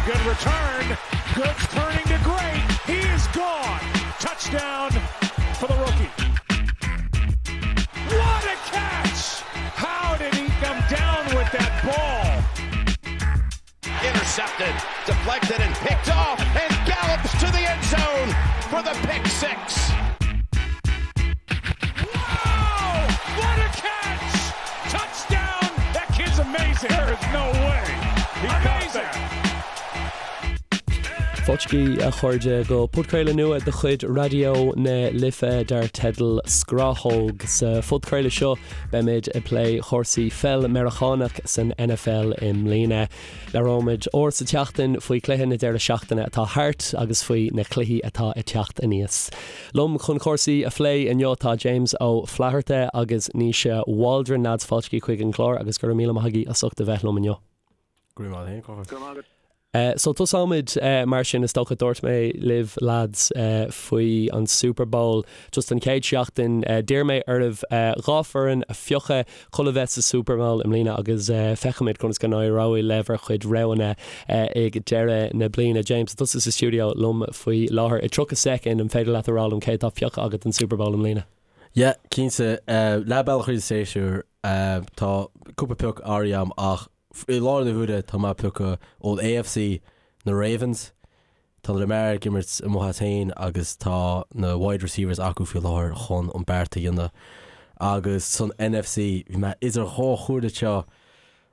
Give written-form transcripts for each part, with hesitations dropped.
Good return. Good turning to great. He is gone. Touchdown for the rookie. What a catch! How did he come down with that ball? Intercepted, deflected, and picked off, and gallops to the end zone for the pick 6. Wow! What a catch! Touchdown! That kid's amazing. There is no way. He amazing. Fáilte a chairde go podchraoladh nua de chuid Raidió na Life dar teideal Scrathóg. Sa phodchraoladh seo beimid ag plé chúrsaí pheil Meiriceánach san NFL i mbliana. Labhróimid uair sa tseachtain faoi chluiche na deireadh seachtaine atá thart agus faoi na cluichí atá ag teacht aníos. Liom chun cúrsaí a phlé inniu tá James Ó Flatharta agus Naoise Waldron. Lads, fáilte chuig an gclár agus go raibh míle maith agaibh as ucht a bheith liom inniu. Go raibh maith agat féin, Go raibh maith agat. So tosóimid mar sin, is dócha. Dúirt mé libh lads faoi an Super Bowl just an chéad seachtain. D'iarr mé oraibh 2 foireann a phiocadh chun a bheith sa Super Bowl i mbliana agus feicfimid conas go n-éireoidh le bhur chuid roghanna ag deireadh na bliana. James, tá tusa sa stiúideo liom faoi láthair. I 30 soicind, an féidir leat a rá liom cé atá pioctha agat don Super Bowl i mbliana? Yeah, cinnte. Leath bealach thríd an séasúr, tá cúpla pioc áirithe agam ach I láthair na huaire tá mé ag piocadh ón AFC na Ravens. Tá Lamar ag imirt amuigh as féin agus tá na wide receivers acu faoi láthair chun an beart a dhéanamh. Agus san NFC bhí mé idir dhá chomhairle anseo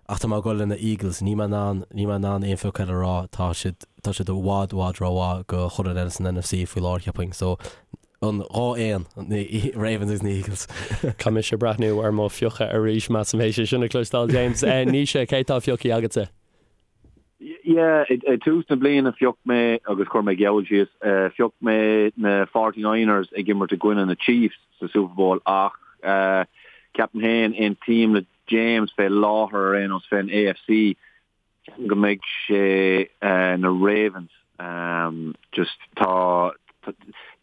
ach tá mé ag dul le na Eagles. Níl mé in ann, níl mé in ann aon phioc eile a rá. Tá siad, tá siad i bhfad, i bhfad rómhaith do chuile dhuine eile san NFC faoi láthair cheapfainn. So an 2 éan, na Ravens agus na Eagles. Caithfidh mise breathnú ar mo phiocadh arís, measaim, théis é sin a chloisteáil, James. Naoise, cé tá pioctha agatsa? Yeah, ag tús na bliana phioc mé, agus chuir mé geall síos, phioc mé na 49ers ag imirt i gcoinne na Chiefs sa Super Bowl ach ceapaim féin, aontaím le James fé láthair ar aon nós fén AFC, Ceapaim go mbeidh sé na Ravens. Just tá,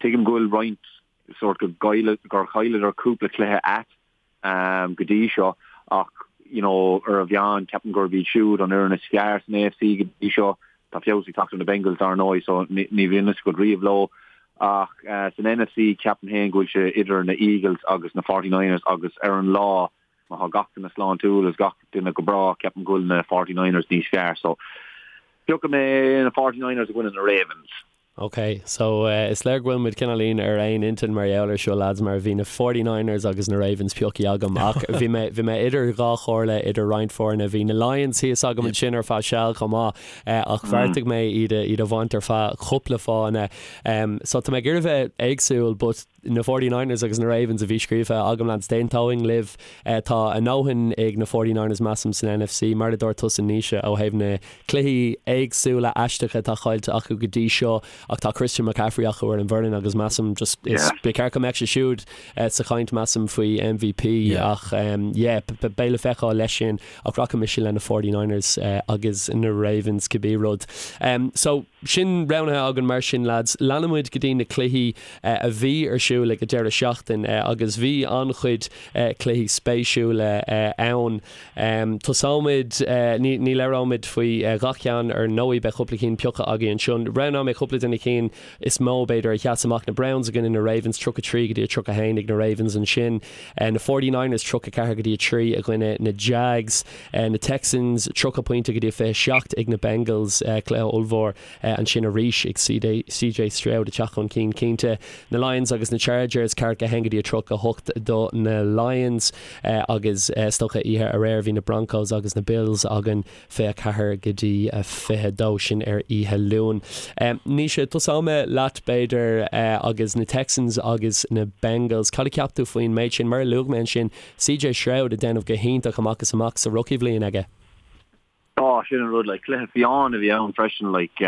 tuigim go bhfuil roinnt sórt go gcailleadh, gur chailleadar cúpla cluiche ait go dtí seo ach you know ar an mheán ceapaim gurb iad siúd an fhoireann is fearr san AFC go dtí seo. Tá feabhas ag teacht ar na Bengals dar ndóigh so ní bhíonn fhios agat riamh leo ach san NFC ceapaim féin go bhfuil sé idir na Eagles agus na 49ers agus ar an lá Má tá gach duine sláintiúil agus gach duine go breá, ceapaim go bhfuil na 49ers níos fearr. So, piocfaidh mé na 49ers i gcoinne na Ravens. Ok, so is léir go bhfuil muid cineáilín ar aon intinn mar gheall ar seo lads, mar bhí na 49ers agus na Ravens pioctha agam ach bhí mé, bhí mé idir dhá chomhairle idir roinnt foirne. Bhí na Lions thíos agam ansin ar feadh seal chomh maith ach bheartaigh mé iad a, iad a bhaint ar feadh cúpla fáthanna. So tá mé ag iarraidh bheith éagsúil but na 49ers agus na Ravens a bhí scríofa agam lads, d'aontóinn libh. Tá a ndóthain ag na 49ers measaim san NFC, mar a dúirt tusa Naoise ó thaobh na cluichí éagsúla aisteacha atá caillte acu go dtí seo ach tá Christian McCaffrey acu ar an bhfoireann agus measaim just is ba cheart go mbeadh sé siúd sa chaint measaim faoi MVP ach yeah beidh le feiceáil leis sin ach rachaidh mise le na 49ers agus na Ravens cibé rud. So sin roghnaithe againn mar sin lads. Leanfaidh muid go dtí na cluichí a bhí ar siúl ag an deireadh seachtaine agus bhí an-chuid cluichí spéisiúla ann. Tosóimid, ní labhróimid faoi gach ceann ar ndóigh, beidh cúpla cinn pioctha againn anseo. Roghnóidh mé cúpla de na cinn is mó b'fhéidir a sheas amach, na Browns i gcoinne na Ravens, 33 go dtí 31 ag na Ravens ansin, na 49ers 34 go dtí 3 i gcoinne na Jags, na Texans 30 pointe go dtí 27 ag na Bengals, cluiche ollmhór. Ansin arís ag CJ Stroud ag teacht chun cinn cinnte. Na Lions agus na Chargers, 41 go dtí 38 do na Lions agus is dócha oíche aréir bhí na Broncos agus na Bills againn 24 go dtí 22, sin ar oíche Luain. Naoise, tosóidh mé leat b'fhéidir agus na Texans agus na Bengals. Cad a cheap tú faoin méid sin? Mar a luaigh mé ansin, CJ Stroud ag déanamh go hiontach amach is amach sa rookie bhliain aige. Á, sin an rud, like, cluiche fiáin a bhí ann freisin, like,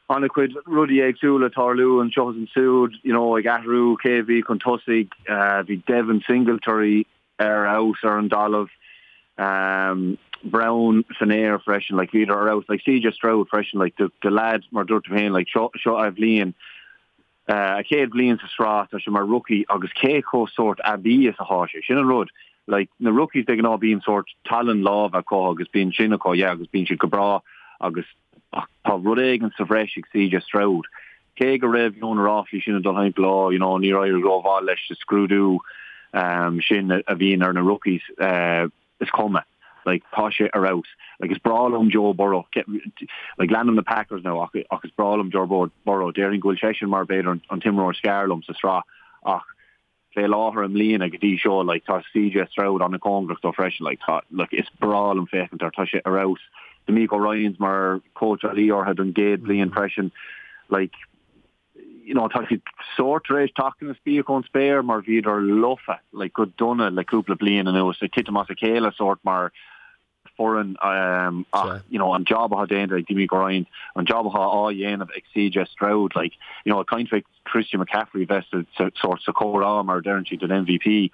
an-chuid rudaí éagsúla ag tarlú anseo is ansiúd, you know, ag athrú cé a bhí chun tosaigh, bhí Devin Singletary ar fheabhas ar an dtalamh, Brown san aer freisin, like, bhíodar ar fheabhas, like, CJ Stroud freisin, like, the, the lad, mar dúirt tú féin, like, seo, seo a bhliain, A chéad bhliain sa sraith, tá sé mar rookie agus cé chomh sórt aibí is atá sé. Sin an rud. Like, na rookies de ghnáth bíonn sórt tallann láimhe acu agus bíonn sin acu, yeah, agus bíonn siad go breá agus Ach tá rud éigin sa bhreis ag CJ Stroud. Cé go raibh you know na ráflaí sin ag dul thimpeall, oh you know níor éirigh rómhaith leis sa scrúdú sin a bhíonn ar na rookies, is cuma. Like tá sé ar fheabhas. Like is breá liom Joe Burrow. Like leanaim na Packers now ach ach is breá liom Joe Burrow. Déarfainn go bhfuil seisean mar b'fhéidir an t-imreoir is fearr liom sa sraith ach fé láthair i mbliana go dtí seo like tá CJ Stroud an-chóngarach dó freisin like tá like is breá liom féachaint air tá sé ar fheabhas. DeMeco Ryans mar cóitseálaí orthu don gcéad bhliain freisin like you know tá siad sórt tar éis teacht ina spíoc ón spéir mar bhíodar lofa like go dona le cúpla bliain anuas ag titim as a chéile sórt mar foireann ach you know an job atá déanta ag DeMeco Ryans, an job atá á dhéanamh ag CJ Stroud like you know ag caint fé Christian McCaffrey bheith sa sórt sa chomhrá mar a deireann siad don MVP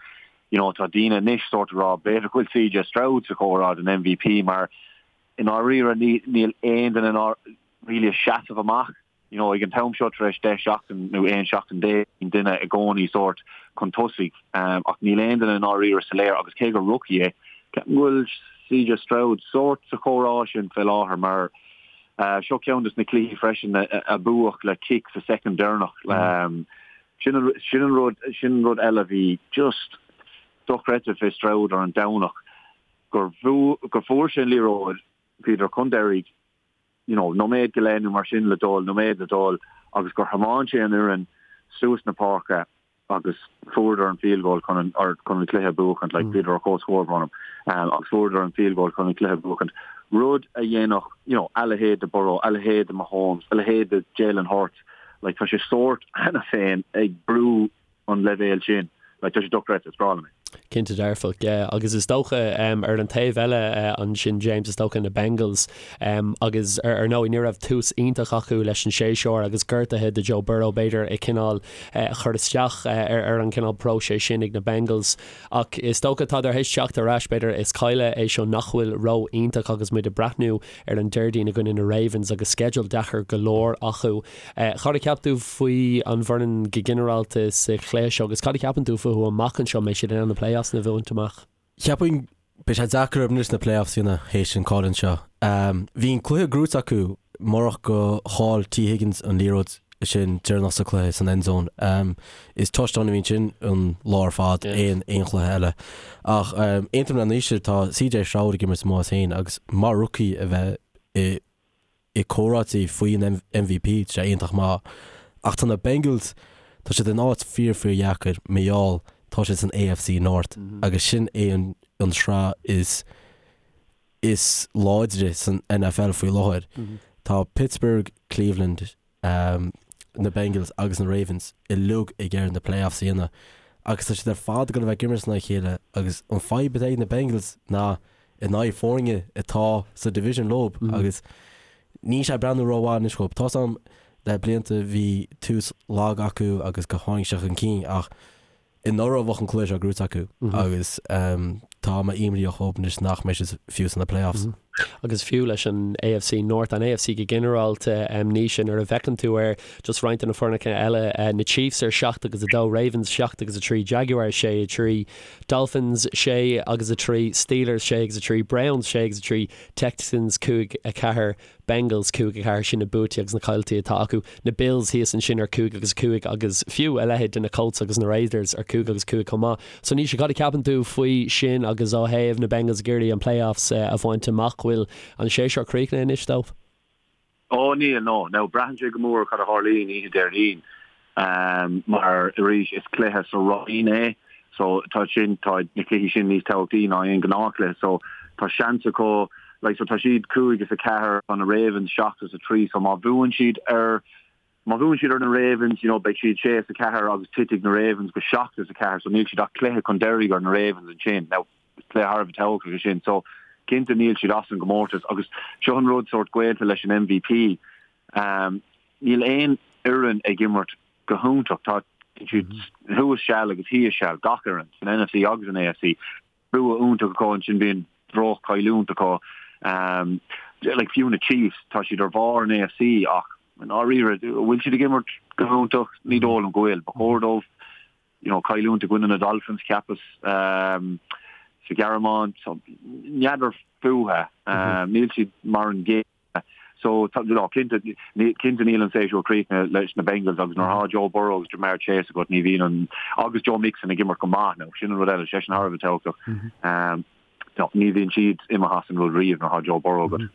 you know tá daoine anois sórt ag rá b'fhéidir go bhfuil CJ Stroud sa chomhrá don MVP mar i ndáiríre níl aon duine really ag seasamh amach you know, ag an t-am seo tar éis 10 seachtain nó 11 seachtain bíonn duine i gcónaí sórt chun tosaigh ach níl aon duine i ndáiríre soiléir agus cé gur rookie é, ceapaim go bhfuil CJ Stroud sórt sa chomhrá sin fé láthair mar seo ceann des na cluichí freisin a buadh le cic sa soicind deireanach. Sin an, sin an rud, sin an rud eile a bhí just dochreidte fé Stroud ar an Domhnach gur gur fuair sé an liathróid, bhíodar chun deiridh, you know, nóiméad go leith nó mar sin le dul, nóiméad le dul agus gur thiomáin sé an fhoireann suas na páirce agus fuaireadar an field goal chun an, or chun an cluiche a bhuachaint, like bhíodar ar comhscór braitheann, um, agus fuaireadar an field goal chun an cluiche a bhuachaint. Rud a dhéanfadh, you know, a leithéid de Burrow, a leithéid de Mahomes, a leithéid de Jalen Hurts, like tá sé sórt cheana féin ag brú an leibhéal sin. Like, tá sé dochreidte, is breá liom é. Cinnte dearfach, yeah. Agus is dócha ar an taobh eile ansin, James, is dócha na Bengals agus ar ndóigh ní raibh tús iontach acu leis an séasúr agus gortuithe do Joe Burrow b'fhéidir ag cineál chur isteach ar an cineál próiseas sin ag na Bengals. Ach is dócha tá tar éis teacht ar ais b'fhéidir is cailleadh é seo nach bhfuil ró-iontach agus muid ag breathnú ar an Déardaoin i gcoinne na Ravens agus sceideal deacair go leor acu. Cad a cheap tú faoi an bhfoireann go ginearálta sa chluiche seo agus cad a cheapann tú fúthu amach anseo? An mbeidh siad in ann na playoffs a bhaint amach? Cheapfainn beidh sé deacair orthu anois na playoffs a dhéanamh théis an cailliúint seo. Bhí an cluiche gnóite acu murach go chaill Tee Higgins an liathróid sin deireanach sa cluiche san end zone. Is touchdown a bhí ansin an lá ar fad aon aon chluiche eile. Ach aontaím le Naoise tá CJ Stroud ag imirt amach as féin agus mar rookie a bheith i i comhráití faoi an MVP, tá sé iontach maith. Ach tá na Bengals, tá siad in áit fíor fíor dheacair mar gheall tá siad san AFC North agus sin é an an sraith is is láidre san NFL faoi láthair. Tá Pittsburgh, Cleveland, na Bengals agus na Ravens uilig ag iarraidh na playoffs a dhéanamh agus tá siad ar fad ag dul a bheith ag imirt in aghaidh a chéile agus an fadhb atá ag na Bengals ná in aghaidh foirne atá sa division leo agus níl sé ag breathnú rómhaith anois dhóibh. Tá's a'm le blianta bhí tús lag acu agus go tháinig sé chun cinn ach anuraidh bheadh an cluiche seo gnóite acu agus tá mé imníoch dhóibh anois nach mbeidh siad fiú sna playoffs. Agus fiú leis an AFC North, an AFC go ginearálta, Naoise, nuair a bhfeiceann tú ar just roinnt de na foirne eile, na Chiefs ar 7 agus 2, Ravens 7 agus 3, Jaguars 6 3, Dolphins 6 agus 3, Steelers 6 agus 3, Browns 6 agus 3, Texans 5 4, Bengals 5 4, sin na buaití agus na cailltí atá acu. Na Bills thíos ansin ar 5 agus 5 agus fiú a leithéid de na Colts agus na Raiders ar 5 agus 5 chomh maith. So Naoise, cad a cheapann tú faoi sin agus ó thaobh na Bengals ag iarraidh an playoffs a bhaint amach, bhfuil an séasúr críochnaithe anois dóibh? Ó níl, no. Now braitheann sé go mór cad a tharlaíonn oíche Déardaoin mar arís is cluiche sa roinn é so tá sin, tá na cluichí sin níos tábhachtaí ná aon ghnáthchluiche so tá seans acu like so tá siad 5 is 4 tá na Ravens 7 is 3 so má bhuann siad ar má bhuann siad ar na Ravens you know beidh siad 6 is 4 agus titfidh na Ravens go 7 is 4 so níl siad ach cluiche chun deiridh ar na Ravens ansin. Now cluiche thar a bheith tábhachtach é sin so cinnte níl siad as an gcomórtas agus seo an rud sórt gaolta leis an MVP um, níl aon fhoireann ag imirt go hiontach tá siad thuas seal agus thíos seal gach fhoireann san NFC agus an AFC bua iontach acu ansin bíonn droch-chailliúint acu. Um, like fiú na Chiefs tá siad ar bharr an AFC ach i ndáiríre bhfuil siad ag imirt go hiontach ní dóigh liom go bhfuil. Ba chóir dóibh you know, cailliúint i gcoinne na Dolphins cheapas um, sa Ghearmáin so n'fheadar fúthu um, níl siad mar an gcéanna. So tá, no, cinnte, cinnte níl an séasúr críochnaithe leis na Bengals agus nuair atá Joe Burrow agus Ja'Marr Chase agat ní bhíonn an, agus Joe Mixon ag imirt go maith now, sin an rud eile, seisean thar a bheith tábhachtach. No, ní bhíonn siad imithe as an rud riamh nuair atá Joe Burrow agat.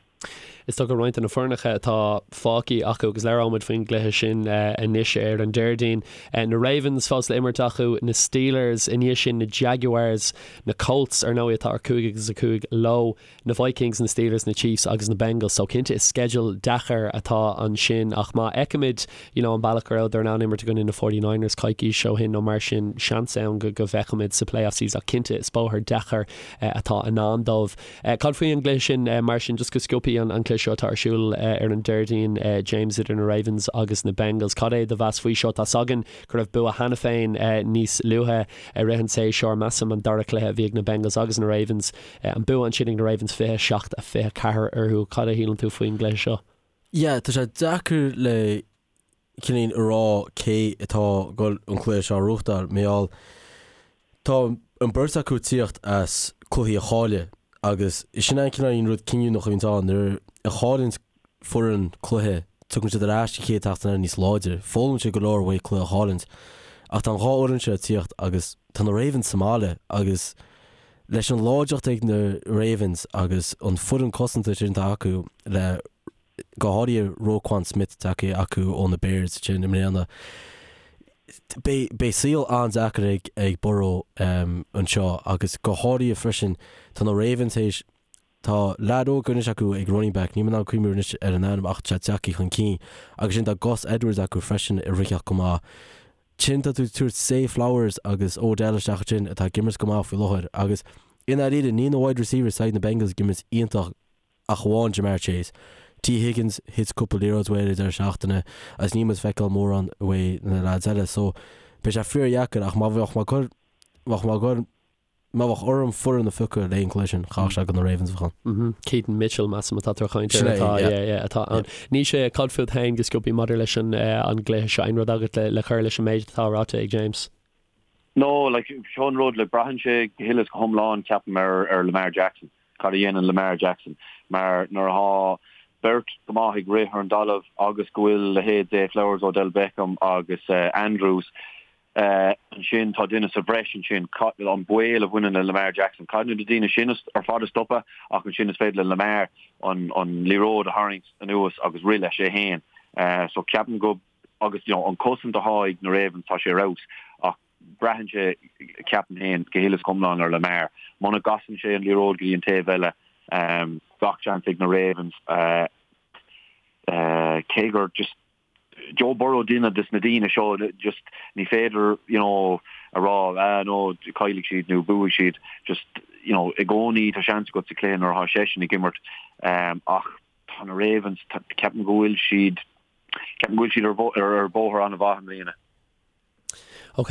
Is dócha roinnt de na foirneacha atá fágtha acu agus labhróimid faoin gcluiche sin anois ar an Déardaoin. Na Ravens fós le imirt acu, na Steelers, i ndiaidh sin na Jaguars, na Colts ar ndóigh atá ar 5 agus 5 leo, na Vikings, na Steelers, na Chiefs agus na Bengals. So cinnte is sceideal deacair atá ansin ach má fheicimid you know an bealach go rabhadar in ann imirt i gcoinne na 49ers coicís ó shin nó mar sin, seans ann go go bhfeicfimid sa playoffs iad ach cinnte is bóthar deacair atá i ndán dóibh. Cad faoi an gcluiche sin mar sin, just go sciobtha an cluiche seo atá ar siúl ar an Déardaoin, James, idir na Ravens agus na Bengals. Cad é do mheas faoi seo? Tá's againn go raibh bua cheana féin níos luaithe i rith an tséasúir, measaim an dara cluiche a bhí ag na Bengals agus na Ravens, an bua ansin ag na Ravens 27-24 orthu. Cad a shíleann tú faoin gcluiche seo? Yeah, tá sé deacair le cineál a rá cé atá ag dul an cluiche seo a ghnóthachtáil, mar gheall tá an beirt acu ag tíocht as cluichí a chailleadh agus sin an cineál rud cinniúnach a bhíonns ann, nuair a chailleann foireann cluiche tugann siad ar ais an chéad tseachtain eile níos láidre, foghlaimíonn siad go leor uaidh cluiche a chailliúint. Ach tá an dhá fhoireann seo ag tíocht agus tá na Ravens sa mbaile agus leis an láidreacht ag na Ravens agus an foireann cosanta sin atá acu le go háirithe Roquan Smith tagtha acu ó na Bears sin i mbliana. Beidh saol an-deacair ag ag Burrow anseo agus go háirithe freisin tá na Ravens théis tá leaid óg anois acu ag running back, níl mé in ann cuimhniú anois ar an ainm ach tá sé tagtha chun cinn agus sin tá Gus Edwards acu freisin ag ritheacht go maith. Sin tá tú ag tabhairt Zay Flowers agus Odell isteach ansin atá ag imirt go maith faoi láthair agus i ndáiríre níl na wide receivers ag na Bengals ag imirt iontach ach amháin Ja'Marr Chase. Tee Higgins, thit cúpla liathróid uaidh ar an deireadh seachtaine agus níl muid ag feiceáil mórán uaidh na lads eile so beidh sé fíordheacair ach má bheadh mé ag cur, bheadh mé ag cur, má bheadh orm foireann a phiocadh le an cluiche sin, chaithfeadh sé gur na Ravens a bheadh ann. Keaton Mitchell, measaim atá tú ag caint air atá, yeah, yeah, atá ann. Naoise, cad fút féin go sciobtha maidir leis an an gcluiche seo, aon rud agat le le cur leis an méid atá ráite ag James? No, like, seo an rud, like, braitheann sé go huile is go hiomlán, ceapaim, ar ar Lamar Jackson. Cad a dhéanann Lamar Jackson? Mar nuair atá beirt go maith ag rith ar an dtalamh agus go bhfuil leithéid Zay Flowers, Odell Beckham agus Andrews ansin, tá duine sa bhreis ansin. An baol a bhaineann le Lamar Jackson. Caithfidh na daoine sin ar fad a stopadh ach ansin is féidir le Lamar an liathróid a tharraingt anuas agus rith leis é féin. So ceapaim go, agus you know an cosaint atá ag na Ravens tá sé ar fheabhas ach Braitheann sé, ceapaim féin, go huile is go hiomlán ar Lamar. Muna gcasann sé an liathróid go dtí an taobh eile, gach seans ag na Ravens. Cé gur just Joe Burrow duine des na daoine seo, just ní féidir, you know, a rá, ah no, caillfidh siad nó buafaidh siad. Just, you know, i gcónaí tá seans agat sa chluiche nuair atá seisean ag imirt. Ach tá na Ravens, ceapaim go bhfuil siad, ceapaim go bhfuil siad ar bhóthar an-mhaith i mbliana. Ok,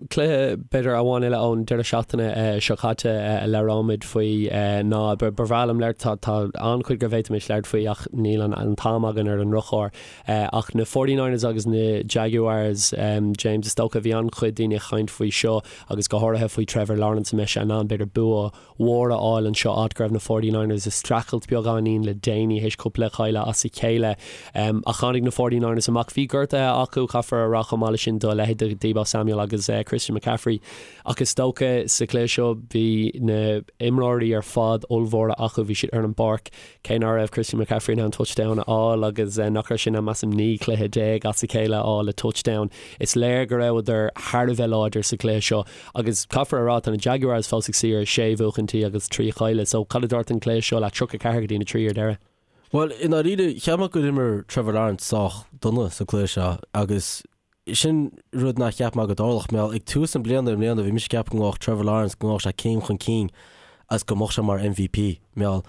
cluiche b'fhéidir amháin eile ón deireadh seachtaine seo caite a labhróimid faoi ná, ba bhreá liom labhairt, tá tá an-chuid go bhféadfaimis labhairt faoi ach níl an an t-am againn ar an ndrochuair. Ach na 49ers agus na Jaguars, James, is dócha, bhí an-chuid daoine ag caint faoi seo agus go háirithe faoi Trevor Lawrence, an mbeidh sé in ann b'fhéidir bua mhór a fháil anseo, áit go raibh na 49ers ag streachailt beagáinín le déanaí théis cúpla cailleadh as a chéile. Ach tháinig na 49ers amach. Bhí gortuithe acu, caithfear a rá, chomh maith leis sin do leithéid de Deebo Samuel agus Christian McCaffrey. Ach is dócha sa chluiche seo bhí na imreoirí ar fad ollmhóra acu, bhí siad ar an bpáirc. Cé nach raibh Christian McCaffrey in ann touchdown a fháil agus nach raibh sé in ann measaim 19 cluiche as a chéile a fháil le touchdown, is léir go rabhadar thar a bheith láidir sa chluiche seo. Agus caithfear a rá, tá na Jaguars fós ag suí ar sé bhuachaintí agus trí chailleadh, so cad a dúirt an cluiche seo leat, 34 go dtí 3 ar deireadh? Bhuel, i ndáiríre, cheap mé gur imir Trevor Lawrence sách dona sa cluiche seo agus sin rud nár cheap mé go dtarlódh. Mar ag tús na bliana i mbliana bhí mise ag ceapadh go ngabhfadh Trevor Lawrence, go ngabhfadh sé céim chun cinn agus go mbeadh sé mar MVP. Mar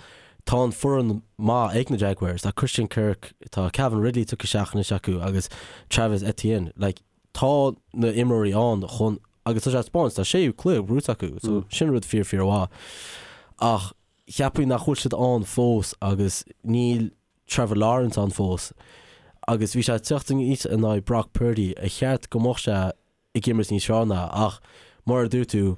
tá an foireann maith ag na Jaguars, tá Christian Kirk, tá Calvin Ridley tugtha isteach anois acu agus Travis Etienne. Like, tá na imreoirí ann chun, agus tá sé ag taispeáint, tá séú cluiche buaite acu, so sin rud fíor fíor mhaith. Ach cheapfainn nach bhfuil siad ann fós agus níl Trevor Lawrence ann fós agus bhí sé ag teacht aníos in aghaidh Brock Purdy, ar cheart go mbeadh sé ag imirt níos fearr ná, ach mar a dúirt tú,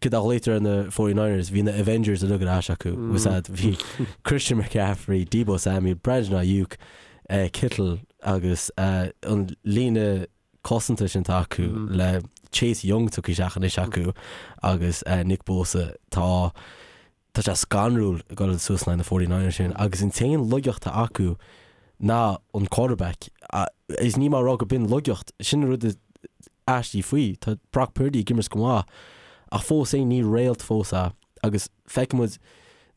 Cad a ghlaoitear ar na 49ers, bhí na Avengers uilig ar ais acu, was that bhí Christian McCaffrey, Deebo Samuel, Brandon Aiyuk, Kittle agus an líne cosanta sin atá acu le Chase Young tugtha isteach anois acu agus Nick Bosa tá tá sé scanrúil ag dul suas in aghaidh na 49ers sin agus an t-aon laigeacht atá acu ná an quarterback. Is níl mé ag rá go b'in laigeacht, sin an rud is aistí faoi. Tá Brock Purdy ag imirt go maith ach fós féin ní réalt fós é agus feicfidh muid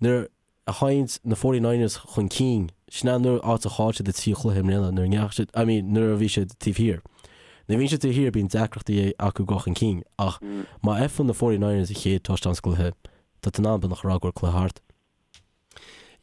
nuair a théann na 49ers chun cinn, sin an áit a chaill siad an trí chluiche i mbliana nuair a ndeachaigh siad, I mean nuair a bhí siad taobh thiar. Nuair a bhíonn siad taobh thiar bíonn deacrachtaí acu dul chun cinn ach má fhaigheann na 49ers an chéad touchdown sa gcluiche, tá tú in ann beagnach a rá go bhfuil cluiche thart.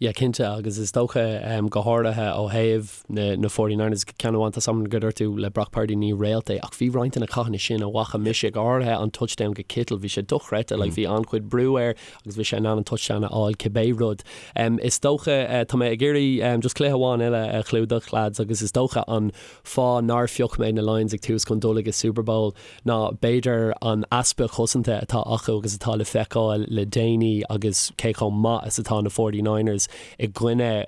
Yeah, cinnte, agus is dócha, go háirithe ó thaobh na na 49ers, ceann amháin, tá a fhios agam go dúirt tú le Brock Purdy ní réalt é, ach bhí roinnt de na cathanna sin a bhfaca mise, go háirithe an touchdown go Kittle, bhí sé dochreidte, like bhí an-chuid brú air agus bhí sé in ann an touchdown a fháil cibé rud. Is dócha, tá mé ag iarraidh just cluiche amháin eile a chlúdach, lads, agus is dócha an fáth nár phioc mé na Lions ag tús chun dul ag an Super Bowl, ná b'fhéidir an easpa cosanta atá acu agus atá le feiceáil le déanaí agus cé chomh maith is atá na 49ers i gcoinne,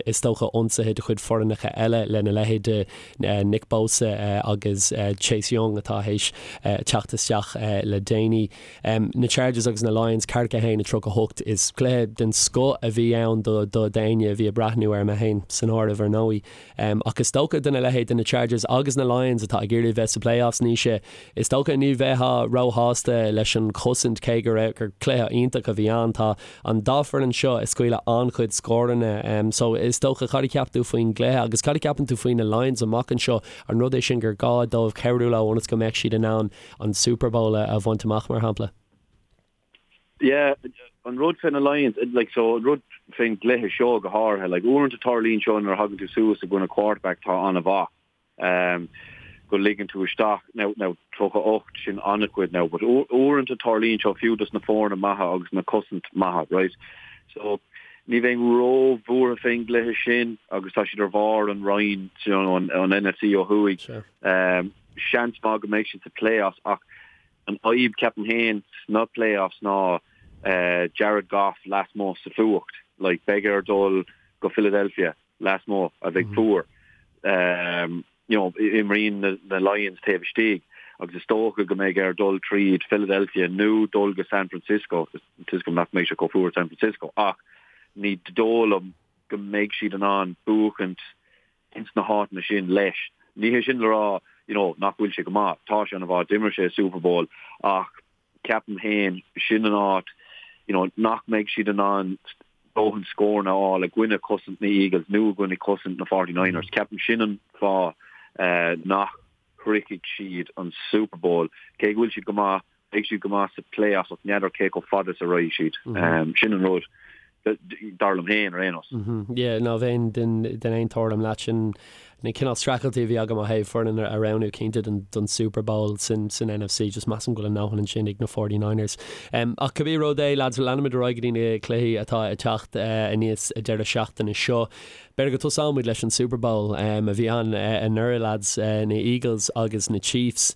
is dócha, ionsaithe de chuid foirneacha eile lena leithéid de Nick Bosa agus Chase Young atá théis teacht isteach le déanaí. Na Chargers agus na Lions, 41, 38. Is cluiche den scoth a bhí ann do d'éinne a bhí ag breathnú air, mé féin san áireamh ar ndóigh. Ach is dócha do na leithéid de na Chargers agus na Lions atá ag iarraidh bheith sa playoffs, Naoise, is dócha ní bheifeá róshásta leis an chosaint cé go raibh, gur cluiche iontach a bhí ann. Tá an dá foireann seo ag scaoileadh an-chuid scóranna. So is dócha, cad a cheap tú faoin gcluiche agus cad a cheapann tú faoi na Lions amach anseo? An rud é sin gur gá dóibh cabhrú leo ionas go mbeadh siad in ann an Super Bowl a bhaint amach, mar shampla? Yeah, an rud fé na Lions, like, so an rud fén gcluiche seo go háirithe, like, uaireanta tarlaíonn seo nuair a thagann tú suas i gcoinne quarterback atá an-mhaith, um, go ligeann tú isteach, now, now, 38, sin an-chuid now, but uaireanta tarlaíonn seo fiú dos na foirne maithe agus na cosaint maithe, right? So, ní bheinn ró-bhuartha fén gcluiche sin agus tá siad ar bharr an roinn, you know, an, an NFC ó thuaidh. Sure. Um, seans maith go mbeidh siad sa playoffs ach An fhadhb, ceapaim féin, sna playoffs ná Jared Goff lasmuigh sa fuacht. Like, beidh air dul go Philadelphia lasmuigh a bheidh fuar. You know, imríonn na Lions taobh istigh agus is dócha go mbeidh air dul tríd Philadelphia nó dul go San Francisco. Tá a fhios agam nach mbeidh sé chomh fuar i San Francisco ach ní dóigh liom go mbeidh siad in ann buachaint ins na háiteanna sin leis. Ní hé sin le rá you know nach bhfuil sé go maith, tá sé an-mhaith, d'imir sé i Super Bowl ach ceapaim féin sin an áit you know nach mbeidh siad in ann dóthain scóranna a fháil i gcoinne cosaint na Eagles nó i gcoinne cosaint na 49ers. Ceapaim sin an fáth nach shroichfidh siad an Super Bowl. Cé go bhfuil siad go maith, beidh siad go maith sa playoffs ach n'fheadar cé chomh fada is a raghaidh siad. Sin an rud, dar liom féin, ar aon nós. Yeah, ná bheinn den den aon tuairim leat. Sin na cineál streachailtí a bhí agam ó thaobh foireann a roghnú cinnte don don Super Bowl san san NFC. Just measaim go bhfuil a ndóthain ansin ag na 49ers. Ach cibé rud é, lads, leanfaimid ar aghaidh go dtí na cluichí atá ag teacht aníos an deireadh seachtaine seo. B'fhéidir go dtosóimid leis an Super Bowl a bhí ann anuraidh, lads, na Eagles agus na Chiefs.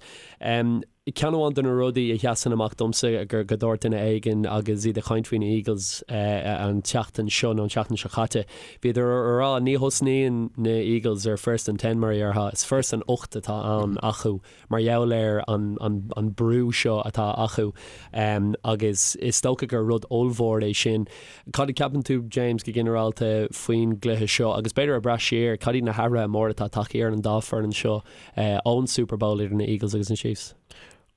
Ceann amháin de na rudaí a sheasann amach domsa gur go dúirt duine éigin agus iad ag caint faoi na Eagles an tseachtain seo nó an tseachtain seo caite, bhíodar a rá ní thosnaíonn na Eagles ar first and ten mar a déarfá, is first and 8 atá ann acu mar gheall ar an an brú seo atá acu agus is dócha gur rud ollmhór é sin. Cad a cheapann tú, James, go ginearálta faoin gcluiche seo agus b'fhéidir ag breith siar, cad iad na hathruithe móra atá tagtha ar an dá foireann seo ón Super Bowl idir na Eagles agus na Chiefs?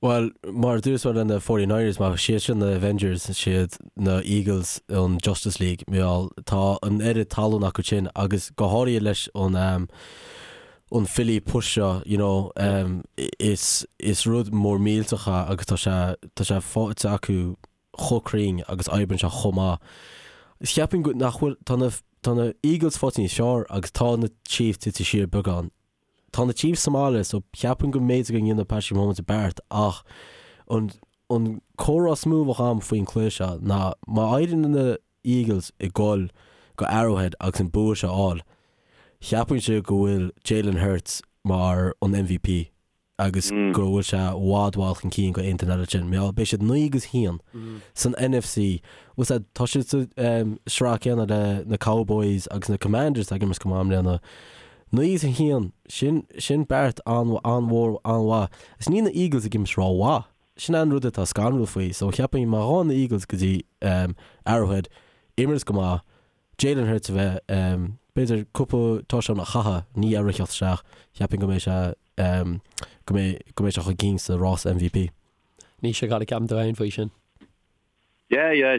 Bhuel, mar a dúirt mé le na 49ers, má siad sin na Avengers, siad na Eagles an Justice League, mar gheall tá an oiread tallann acu sin agus go háirithe leis an an Philly push seo, you know, is is rud mór millteach é agus tá sé tá sé faighte acu chomh cruinn agus oibríonn sé chomh maith. Cheapfainn go nach bhfuil tá na tá na Eagles faighte níos fearr agus tá na Chiefs tite siar beagán. Tá na Chiefs sa mbaile so cheapfainn go mb'fhéidir go ndéanfaidh Patrick Mahomes a beart ach an an comhrá is mó a bheadh agam faoin cluiche seo ná má éiríonn na Eagles ag goil go Arrowhead agus an bua seo a fháil, cheapfainnse go bhfuil Jalen Hurts mar an MVP. agus go bhfuil sé i bhfad bhfad chun cinn go aon duine eile sin. Mar beidh siad 9 agus 1 san NFC. Bhfuil a fhios agat, tá siad sa sraith céanna le na Cowboys agus na Commanders atá ag imirt go maith i mbliana. 9 agus 1, sin, sin beart an-mhór, an-mhaith. Is níl na Eagles ag imirt rómhaith. Sin an rud atá scanrúil faoi. So cheapfainn má ghabhann na Eagles go dtí Arrowhead, imirt go maith, Jalen Hurts a bheith, b'fhéidir cúpla touchdown a chaitheamh, ní a rith isteach, cheapfainn go mbeidh sé go mbeidh go mbeidh sé chun cinn sa rás MVP. Naoise, cad a cheapann tú féin faoi sin? Yeah, yeah,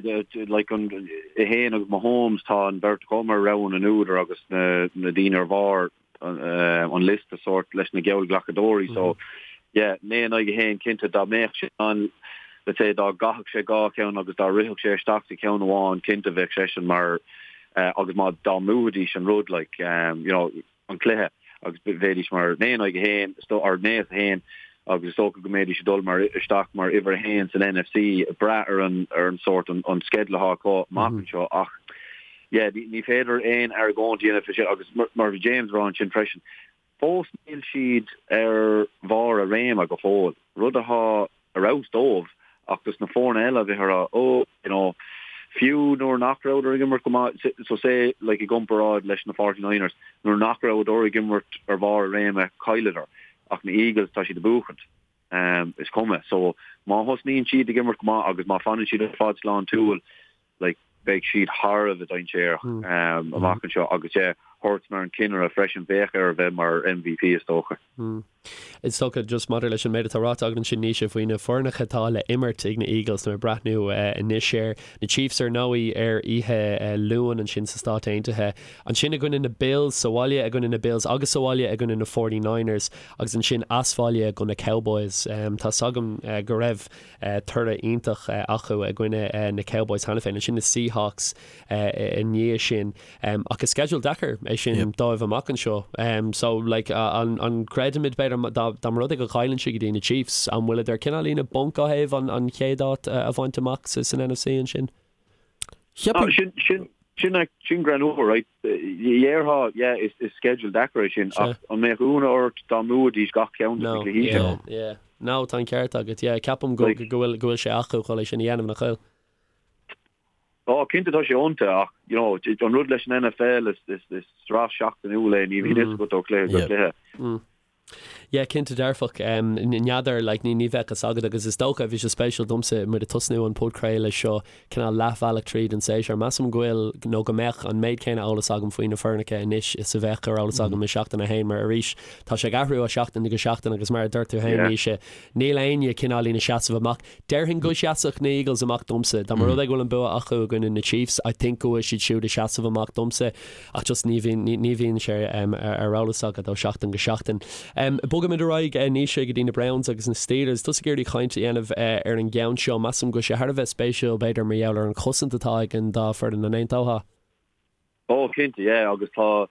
like an é féin agus Mahomes tá an bheirt acu mar rogha na n-údar agus na na daoine ar bharr an liosta sórt leis na geallghlacadóirí so yeah, 9 in aghaidh 1 cinnte dá mbeadh sé an let's say dá gcaithfeadh sé dhá cheann agus dá rithfeadh sé isteach sa cheann amháin cinnte bheadh seisean mar agus má dá mbuafaidís an rud like you know an cluiche agus bheidís mar 9 in aghaidh 1 or 9 is 1 agus is dócha go mbeidís ag dul mar isteach mar uimhir 1 san NFC ag brath ar an ar an sórt an an sceideal atá acu amach anseo ach yeah ní ní féidir aon argóint a dhéanamh faoi sin agus mar mar bhí James ag rá ansin freisin fós níl siad ar bharr a réime go fóill rud atá ar fheabhas dóibh ach dos na foirne eile a bheith ag rá oh you know fiú nuair nach rabhadar ag imirt go maith so say like i gcomparáid leis na 49ers nuair nach rabhadar ag imirt ar bharr a réime chailleadar ach na Eagles tá siad ag buachaint um, is cuma so má thosnaíonn siad ag imirt go maith agus má fanann siad ar fad sláintiúil like beidh siad thar a bheith dainséarach um, amach anseo agus yeah, Hurts mar an cinnire freisin bheadh air a bheith mar MVP is dócha. Is dócha, just maidir leis an méid atá ráite agat ansin, Naoise, faoi na foirneacha atá le imirt ag na Eagles, tá mé ag breathnú anois air, na Chiefs ar ndóigh ar oíche Luain ansin sa Stáit Aontaithe, ansin i gcoinne na Bills, sa bhaile i gcoinne na Bills agus sa bhaile i gcoinne na 49ers agus ansin as bhaile go na Cowboys. Tá's agam go raibh toradh iontach acu i gcoinne na Cowboys cheana féin, ansin na Seahawks i ndiaidh sin. Ach is sceideal deacair é sin dóibh amach anseo. So like an an gcreidimid b'fhéidir dá dá mba rud é go gcailleann siad go dtí na Chiefs, an bhfuileadar cineáilín i bponc ó thaobh an an chéad áit a bhaint amach sa san NFC ansin? Cheapfainn. Sin sin sin sin greannmhar, right? Dhéarfá, yeah, is is sceideal deacair é sin ach an mbeadh ionadh ort dá mbuafaidís gach ceann de na cluichí sin? No, yeah, yeah. No, tá an ceart agat, yeah. Ceapaim go go bhfuil go bhfuil sé acu chun é sin a dhéanamh, nach bhfuil? Ó, cinnte tá sé iontu ach, you know, an rud leis an NFL is, is, is sraith seachtainiúil é, ní bhíonn fhios agat ó chluiche go cluiche. Yeah, cinnte dearfach. N'fheadar, like, ní, ní bheadh fhios agat agus is dócha, bhí sé spéisiúil domsa muid ag tosnú an podchraoladh seo cineál leathbhealach tríd an séasúr. Measaim go bhfuil, nó go mbeadh, an méid céanna eolas agam faoi na foirneacha anois is a bheadh ar eolas agam i seachtain a haon mar arís tá sé ag athrú ó sheachtain go seachtain agus mar a dúirt tú féin, Naoise, níl éinne cineáilín ag seasamh amach. Déarfainn go seasfadh na Eagles amach domsa. Dá mba rud é go bhfuil an bua acu i gcoinne na Chiefs, I think go bhfuil siad siúd ag seasamh amach domsa. Ach just ní bhíonn, ní bhíonn sé ar eolas agat ó sheachtain go seachtain. Bogaimid ar aghaidh, Naoise, go dtí na Browns agus na Steelers. Tusa ag iarraidh caint a dhéanamh ar an gceann seo. Measaim go bhfuil sé thar a bheith spéisiúil, b'fhéidir, mar gheall ar an chosaint atá ag an dá foireann. An aontófá? Ó, cinnte, yeah, agus tá,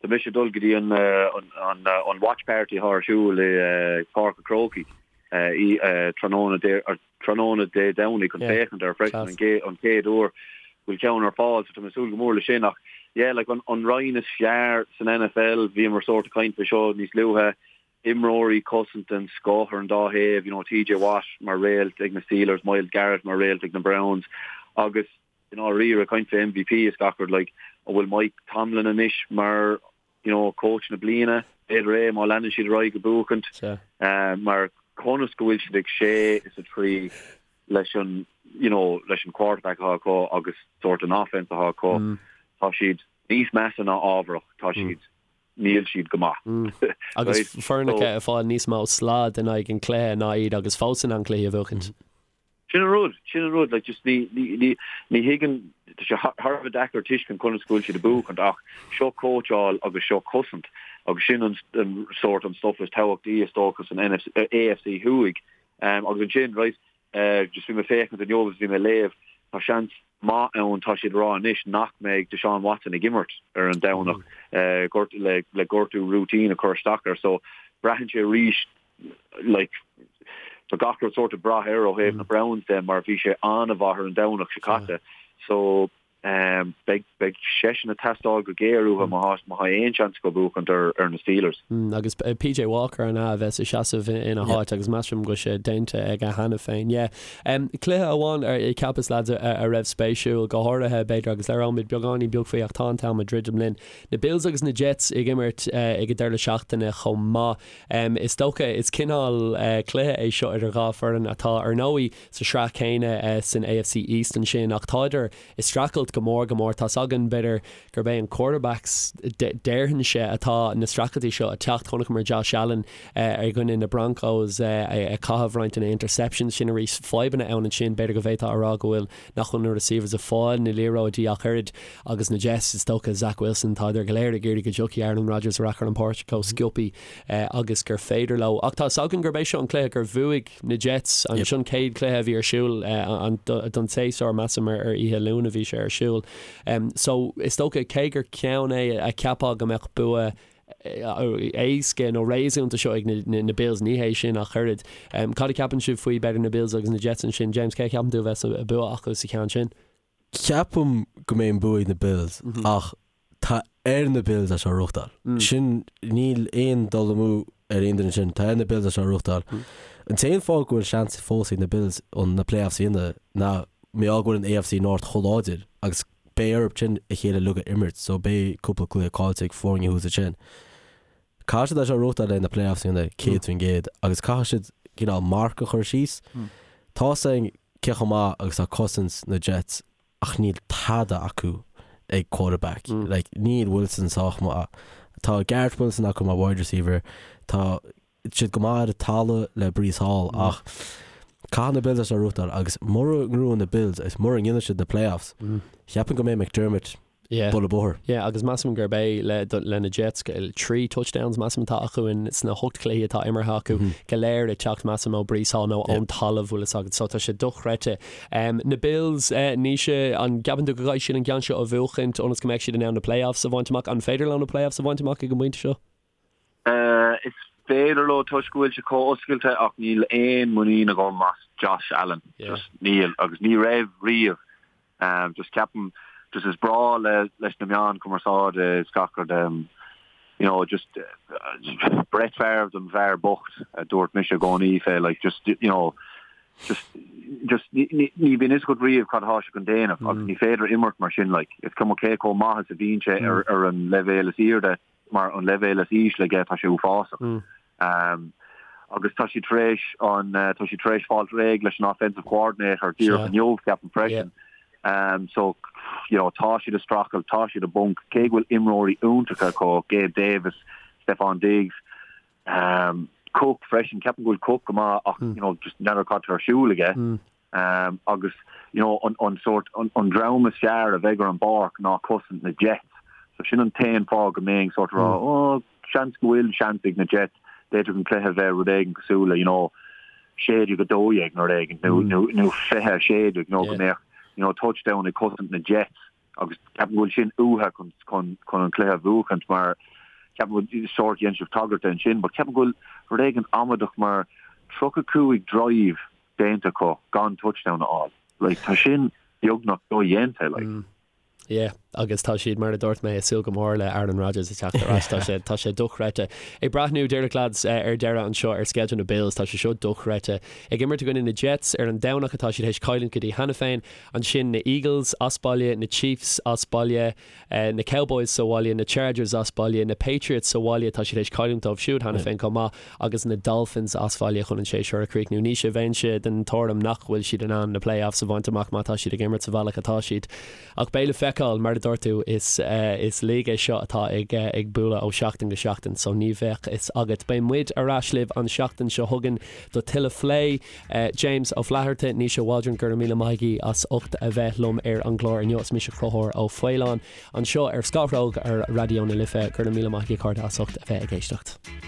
tá mise ag dul go dtí an, an, an watch party atá ar siúl i Páirc an Chrócaigh i tráthnóna Dé, tráthnóna Dé Domhnaigh chun féachaint air freisin, an gcéad, an chéad uair go bhfuil ceann ar fáil, so tá mé ag súil go mór le sin ach yeah, like an, an roinn is fearr san NFL, bhíomar sórt ag caint faoi seo níos luaithe, imreoirí cosaint den scoth ar an dá thaobh, you know, TJ Watt mar réalt ag na Steelers, Myles Garrett mar réalt ag na Browns agus i ndáiríre, ag caint fé MVP is gach rud, like, an bhfuil Mike Tomlin anois mar, you know, coach na bliana? B'fhéidir é, má leanann siad ar aghaidh ag buachaint. Mar conas go bhfuil siad ag sé is a trí leis an, you know, leis an quarterback atá acu agus sórt an offense atá acu, tá siad níos measa ná ámharach, tá siad, níl siad go maith. Agus foirneacha ag fáil níos mó slad in aghaidh an chluiche ná iad agus fós in ann cluichí a bhuachaint. Sin an rud, sin an rud, like just ní, ní, ní, ní thuigim, tá sé thar a bheith deacair tuiscint conas go bhfuil siad ag buachaint ach seo cóitseáil agus seo cosaint agus sin an, an sórt an stuff is tábhachtaí is dócha san NFC, AFC Thuaidh. Um, agus ansin, right, uh, just bhí mé ag féachaint inniu agus bhí mé ag léamh, tá seans maith ann, tá siad ag rá anois nach mbeidh Deshaun Watson ag imirt ar an Domhnach, uh, gort, le, le gortú routine a chur isteach air, so braitheann sé arís like, tá gach rud sórt ag brath air ó thaobh na Browns de mar bhí sé an-mhaith ar an Domhnach seo caite. So. Beidh beidh seisean ag teastáil go géar uathu má tá má tá aon seans acu buachaint ar ar na Steelers. Agus PJ Walker an ea a bheas ag seasamh ina háit agus measaim go bhfuil sé déanta aige cheana féin. Yeah. Cluiche amháin ar cheapas lads a raibh spéisiúil, go háirithe b'fhéidir agus labhróimid beagáinín beag faoi ach tá an t-am ag druidim linn. Na Bills agus na Jets ag imirt ag an deireadh seachtaine chomh maith. Is dócha is cineál cluiche é seo idir dhá foireann atá ar ndóigh sa sraith chéanna san AFC East ansin ach tádar ag streachailt go mór go mór. Tá's againn, b'fhéidir, gurb é an quarterbacks, déarfainnse, atá na streachailtí seo ag teacht. Chonaiceamar Josh Allen i gcoinne na Broncos ag caitheamh roinnt de na interceptions sin arís. Fadhbanna ann ansin, b'fhéidir go bhféadfá a rá go bhfuil, nach bhfuil na receivers ag fáil na liathróidí ach oiread agus na Jets, is dócha, Zach Wilson, tádar go léir ag iarraidh go dtiocfaidh Aaron Rodgers ar ais ar an bpáirc chomh sciobtha agus gur féidir leo. Ach tá's againn gurb é seo an cluiche gur bhuaigh na Jets, an sin chéad cluiche a bhí ar siúl don tséasúr, measaim ar oíche Luain a bhí sé ar siúl. So is dócha cé gur ceann é a cheapfá go mbeadh bua éasca nó réasúnta seo ag na Bills, ní hé sin ach oiread. Cad a cheapann sibh faoi b'fhéidir na Bills agus na Jets ansin? James, cé a cheapann tú a bheas an bua acu sa cheann sin? Ceapaim go mbeidh an bua ag na Bills ach tá ar na Bills é seo a ghnóthachtáil. Sin, níl aon dul amú ar aon duine sin. Tá ar na Bills é seo a ghnóthachtáil. An t-aon fáth go bhfuil seans fós ag na Bills chun na playoffs a dhéanamh ná mar gheall go bhfuil an AFC North chomh láidir agus beidh orthu sin a chéile uilig a imirt so beidh cúpla cluiche caillte ag foirne thuas ansin. Caithfidh siad é seo a ghnóthachtáil le na playoffs a dhéanamh 100% agus caithfidh siad cineál marc a chur síos. Tá's againn cé chomh maith agus tá cosaint na Jets ach níl tada acu ag quarterback. Like, níl Wilson sách maith. Tá Garrett Wilson acu mar wide receiver. Tá siad go maith ar an talamh le Breece Hall ach caithfidh na Bills é seo a ghnóthachtáil agus mura ngnóthaíonn na Bills agus mura ndéanann siad na playoffs, cheapfainn go mbeidh McDermott Yeah. bualadh bóthair. Yeah, agus measaim gurb é le, le na Jets, 3 touchdowns measaim atá acu in sna hocht cluichí atá imeartha acu, go léir ag teacht measaim ó Breece Hall nó ón talamh, bhfuil fhios agat, so tá sé dochreidte. Na Bills, Naoise, an gceapann tú go gcaithfidh siad an ceann seo a bhuachaint ionas go mbeidh siad in ann na playoffs a bhaint amach? An féidir leo na playoffs a bhaint amach ag an bpointe seo? Is féidir leo toisc go bhfuil sé chomh oscailte ach níl aon muinín agam as Josh Allen. Just níl agus ní raibh riamh. Just ceapaim just is breá le leis na meáin cumarsáide is gach rud you know just Brett Favre don bhfear bocht a dúirt mise i gcónaí fé like just you know just just ní ní bhíonn fhios agat riamh cad atá sé chun déanamh agus ní féidir imirt mar sin like is cuma cé chomh maith is a bhíonn sé ar ar an leibhéal is airde mar an leibhéal is ísle aige tá sé uafásach. Agus tá siad tar éis an tá siad tar éis fáilt réidh leis an offensive coordinator díreach inniu ceapaim freisin. So you know tá siad ag streachailt, tá siad i bponc, cé go bhfuil imreoirí iontacha acu, Gabe Davis, Stefon Diggs, Cook freisin, ceapaim go bhfuil Cook go maith ach you know just n'fheadar cad tá ar siúl aige. Agus you know an an sórt an an dream is fearr a bheidh ar an bpáirc ná cosaint na Jets. So sin an t-aon fáth go mbeinn sórt ag rá oh seans go bhfuil seans ag na Jets, d'fhéadfadh an cluiche a bheith rud éigin cosúil le you know 16 12 nó rud éigin nó nó nó 20 16 nó go mbeadh you know touchdown ag cosaint na Jets agus ceapaim go bhfuil sin uathu chun chun chun an cluiche a bhuachaint mar ceapaim go bhfuil sórt dhein sibh tagairt ansin but ceapaim go bhfuil rud éigin amaideach mar 35 drive déanta acu gan touchdown a fháil. Like, tá sin beagnach dodhéanta, like. Mm. Yeah, agus tá siad, mar a dúirt mé, ag súil go mór le Aaron Rodgers ag teacht ar ais. Tá sé, tá sé dochreidte. Ag breathnú, díreach lads, ar deireadh anseo ar sceideal na Bills, tá sé seo dochreidte. Ag imirt i gcoinne na Jets ar an Domhnach atá siad théis cailliúint go dtí cheana féin, ansin na Eagles as baile, na Chiefs as baile, na Cowboys sa bhaile, na Chargers as baile, na Patriots sa bhaile, tá siad théis cailliúint dóibh siúd cheana féin chomh maith, agus na Dolphins as baile chun an séasúr a chríochnú. Naoise, bheinnse den tuairim nach bhfuil siad in ann na playoffs a bhaint amach má tá siad ag imirt sa bhealach atá siad. Ach beidh le feiceáil, mar a dúirt tú, is is league é seo atá ag ag bualadh ó sheachtain go seachtain, so ní bheadh fhios agat. Beidh muid ar ais libh an seachtain seo chugainn do tuilleadh phlé. James Ó Flatharta, Naoise Waldron, go raibh míle maith agaibh as ucht a bheith liom ar an gclár inniu. Is mise Conchúr Ó Faoláin anseo ar Scáthróg ar Raidió na Life. Go raibh míle maith agaibh a chairde as ucht a bheith ag éisteacht.